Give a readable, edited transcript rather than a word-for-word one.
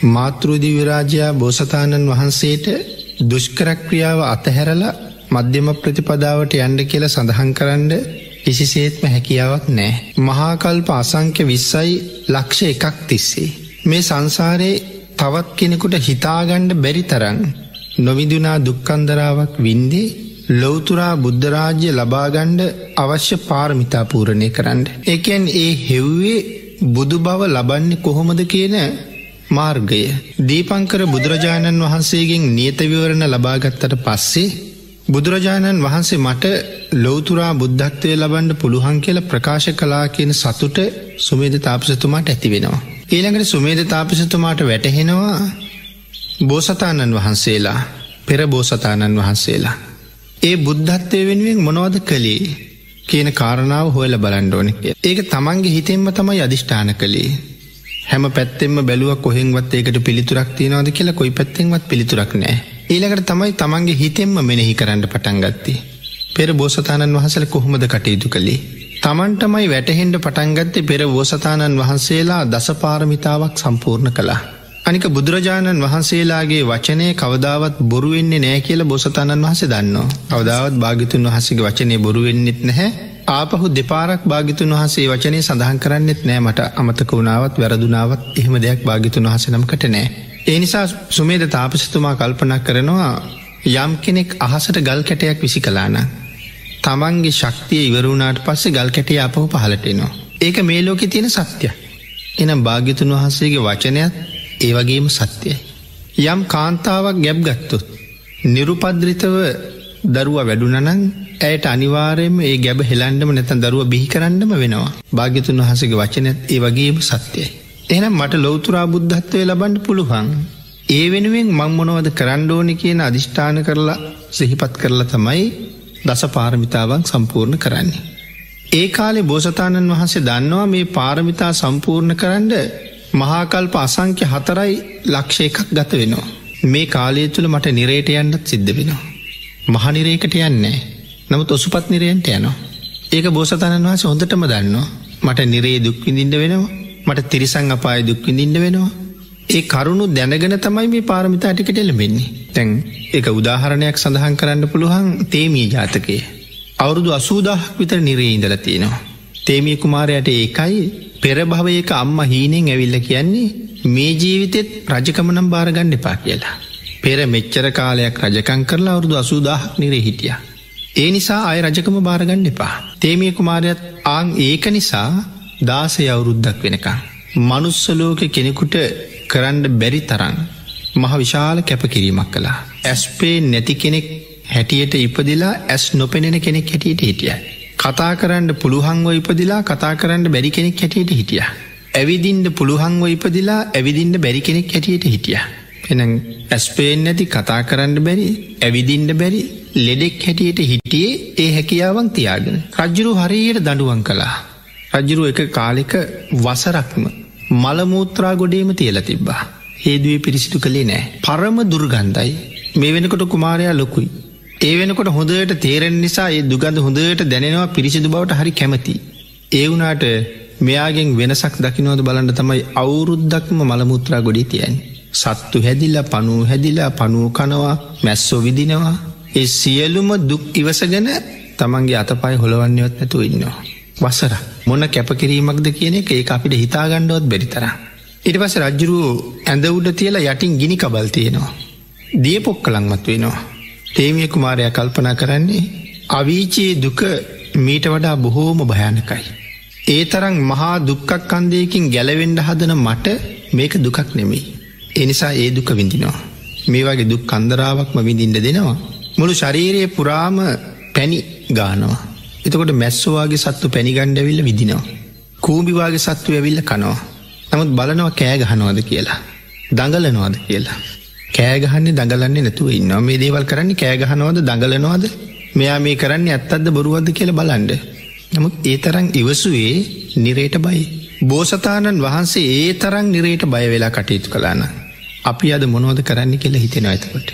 මාතෘ දිව්‍ය රාජයා බෝසතාණන් වහන්සේට දුෂ්කර ක්‍රියාව අතහැරලා මධ්‍යම ප්‍රතිපදාවට යන්න කියලා සඳහන් කරන්න කිසිසේත්ම හැකියාවක් නැහැ. මහා කල්ප අසංඛ්‍ය 20යි ලක්ෂ එකක් තිස්සේ මේ සංසාරේ තවත් කෙනෙකුට හිතාගන්න බැරි තරම් නොවිඳුනා දුක්ඛන්දරාවක් වින්දේ ලෞතුරා බුද්ධ රාජ්‍ය ලබා ගන්න අවශ්‍ය පාරමිතා පූර්ණේ කරන්න. ඒ කියන්නේ ඒ හෙව්වේ බුදු බව ලබන්නේ කොහොමද කියන මාර්ගය. දීපංකර බුදුරජාණන් වහන්සේගෙන් නියත විවරණ ලබා ගත්තට පස්සේ බුදුරජාණන් වහන්සේ මට ලෞතුරා බුද්ධත්වය ලබන්න පුළුවන් කියලා ප්‍රකාශ කළා කියන සතුට සුමේද තාපසතුමාට ඇති වෙනවා. ඊළඟට සුමේද තාපසතුමාට වැටහෙනවා බෝසතාණන් වහන්සේලා පෙර බෝසතාණන් වහන්සේලා ඒ බුද්ධත්වය වෙනුවෙන් මොනවද කළේ කියන කාරණාව හොයලා බලන්න ඕනේ කියලා. ඒක තමන්ගේ හිතෙන්ම තමයි අදිෂ්ඨාන කළේ. හැම පැත්තෙන්ම බැලුවා කොහෙන්වත් ඒකට පිළිතුරක් තියනවද කියලා කොයි පැත්තෙන්වත් පිළිතුරක් නැහැ. ඊළඟට තමයි තමන්ගේ හිතෙන්ම මෙනෙහි කරන්න පටන් ගත්තේ. පෙර බෝසතාණන් වහන්සේලා කොහොමද කටයුතු කළේ? තමන්ටමයි වැටහෙන්න පටන් ගත්තේ පෙර බෝසතාණන් වහන්සේලා දසපාරමිතාවක් සම්පූර්ණ කළා. අනික බුදුරජාණන් වහන්සේලාගේ වචනය කවදාවත් බොරු වෙන්නේ නැහැ කියලා බෝසතාණන් වහන්සේ දන්නවා. කවදාවත් භාග්‍යතුන් වහන්සේගේ වචනේ බොරු වෙන්නෙත් නැහැ. ආපහු දෙපාරක් භාග්‍යතුන් වහන්සේ වචනේ සඳහන් කරන්නෙත් නෑ. මට අමතක වුණාවත් වැරදුනාවත් එහෙම දෙයක් භාග්‍යතුන් වහන්සේ නමකට නෑ. ඒ නිසා සුමේද තාපසතුමා කල්පනා කරනවා යම් කෙනෙක් අහසට ගල් කැටයක් විසි කළා නම් තමන්ගේ ශක්තිය ඉවර වුණාට පස්සේ ගල් කැටය ආපහු පහළට එනවා. ඒක මේ ලෝකේ තියෙන සත්‍යයක්. එහෙනම් භාග්‍යතුන් වහන්සේගේ වචනයත් ඒ වගේම සත්‍යයි. යම් කාන්තාවක් ගැබ් ගත්තොත් නිරුපද්‍රිතව දරුවා වැඩුණා නම් ඇයට අනිවාර්යයෙන්ම ඒ ගැබ හෙලන්නම නැත්නම් දරුවා බිහි කරන්නම වෙනවා. භාග්‍යතුන් වහන්සේගේ වචනයත් ඒ වගේම සත්‍යයි. එහෙනම් මට ලෞතුරා බුද්ධත්වය ලබන්න පුළුවන්. ඒ වෙනුවෙන් මං මොනවද කරන්න ඕනේ කියන අදිෂ්ඨාන කරලා සිහිපත් කරලා තමයි දස පාරමිතාවන් සම්පූර්ණ කරන්නේ. ඒ කාලේ බෝසතාණන් වහන්සේ දන්නවා මේ පාරමිතා සම්පූර්ණ කරන්න මහා කල්ප අසංඛ්‍ය 4යි ලක්ෂ එකක් ගත වෙනවා. මේ කාලය තුල මට නිරේට යන්නත් සිද්ධ වෙනවා. මහ නිරේකට යන්නේ නැහැ. නමුත් ඔසුපත් නිරයන්ට යනවා. ඒක බෝසතාණන් වහන්සේ හොඳටම දන්නවා. මට නිරේ දුක් විඳින්න වෙනවා. මට තිරිසන් අපායේ දුක් විඳින්න වෙනවා. ඒ කරුණු දැනගෙන තමයි මේ පාරමිතා ටිකට එළඹෙන්නේ. දැන් ඒක උදාහරණයක් සඳහන් කරන්න පුළුවන් තේමී ජාතකයේ. අවුරුදු 80000ක් විතර නිරේ ඉඳලා තියෙනවා. තේමී කුමාරයාට ඒකයි පෙර භවයක අම්මා හීනෙන් ඇවිල්ලා කියන්නේ මේ ජීවිතෙත් රජකම නම් බාර ගන්න එපා කියලා. පෙර මෙච්චර කාලයක් රජකම් කරලා අවුරුදු 80000ක් නිරේ හිටියා. ඒ නිසා ආය රජකම බාර ගන්න එපා. තේමී කුමාරයාත් ආන් ඒක නිසා 16 අවුරුද්දක් වෙනකන් මනුස්ස ලෝකේ කෙනෙකුට කරන්න බැරි තරම් මහ විශාල කැපකිරීමක් කළා. ඇස් පේන්නේ නැති කෙනෙක් හැටියට ඉපදිලා ඇස් නොපෙනෙන කෙනෙක් හැටියට හිටියා. කතා කරන්න පුළුවන්ව ඉපදිලා කතා කරන්න බැරි කෙනෙක් හැටියට හිටියා. ඇවිදින්න පුළුවන්ව ඉපදිලා ඇවිදින්න බැරි කෙනෙක් හැටියට හිටියා. එහෙනම් ඇස් පේන්නේ නැති, කතා කරන්න බැරි, ඇවිදින්න බැරි ලෙඩෙක් හැටියට හිටියේ ඒ හැකියාවන් තියාගෙන. රජුරු හරියට දඬුවම් කළා. රජුරු එක කාලෙක වසරක්ම මල මූත්‍රා ගොඩේම තියලා තිබ්බා. හේදුවේ පිරිසිදු කළේ නෑ. පරම දුර්ගන්ධයි. මේ වෙනකොට කුමාරයා ලොකුයි. ඒ වෙනකොට හොඳට තේරෙන නිසා ඒ දුගඳ හොඳට දැනෙනවා, පිරිසිදු බවට හරි කැමති. ඒ වුණාට මෙයාගෙන් වෙනසක් දකින්නවද බලන්න තමයි අවුරුද්දක්ම මල මූත්‍රා ගොඩේ තියන්නේ. සත්තු හැදිලා, පණුව හැදිලා, පණුව කනවා, මැස්සෝ විදිනවා. ඒ සියලුම දුක් ඉවසගෙන තමන්ගේ අතපය හොලවන්නේවත් නැතුව ඉන්නවා. වසර මොන කැපකිරීමක්ද කියන එක ඒක අපිට හිතා ගන්නවත් බැරි තරම්. ඊට පස්සේ රජුරුව ඇඳ උඩ තියලා යටින් ගිනි කබල් තියෙනවා. දිය පොක්කලන්වත් වෙනවා. තේමිය කුමාරයා කල්පනා කරන්නේ අවීචයේ දුක මීට වඩා බොහෝම භයානකයි. ඒ තරම් මහා දුක්ඛක්ඛන්දයකින් ගැලවෙන්න හදන මට මේක දුකක් නෙමෙයි. ඒ නිසා ඒ දුක විඳිනවා. මේ වගේ දුක් කන්දරාවක්ම විඳින්න දෙනවා. මුළු ශරීරය පුරාම පැණි ගානවා. එතකොට මැස්සෝ වගේ සත්තු පැණි ගන්න ඇවිල්ලා විදිනවා. කූඹි වගේ සත්තු ඇවිල්ලා කනවා. නමුත් බලනවා කෑ ගහනවද කියලා, දඟලනවද කියලා. කෑ ගහන්නේ දඟලන්නේ නැතුව ඉන්නවා. මේ දේවල් කරන්නේ කෑ ගහනවද දඟලනවද, මෙයා මේ කරන්නේ ඇත්තක්ද බොරුවක්ද කියලා බලන්න. නමුත් ඒ තරම් ඉවසුවේ නිරේට බයයි. බෝසතාණන් වහන්සේ ඒ තරම් නිරේට බය වෙලා කටයුතු කළා නම් අපි අද මොනවද කරන්නේ කියලා හිතෙනවා එතකොට.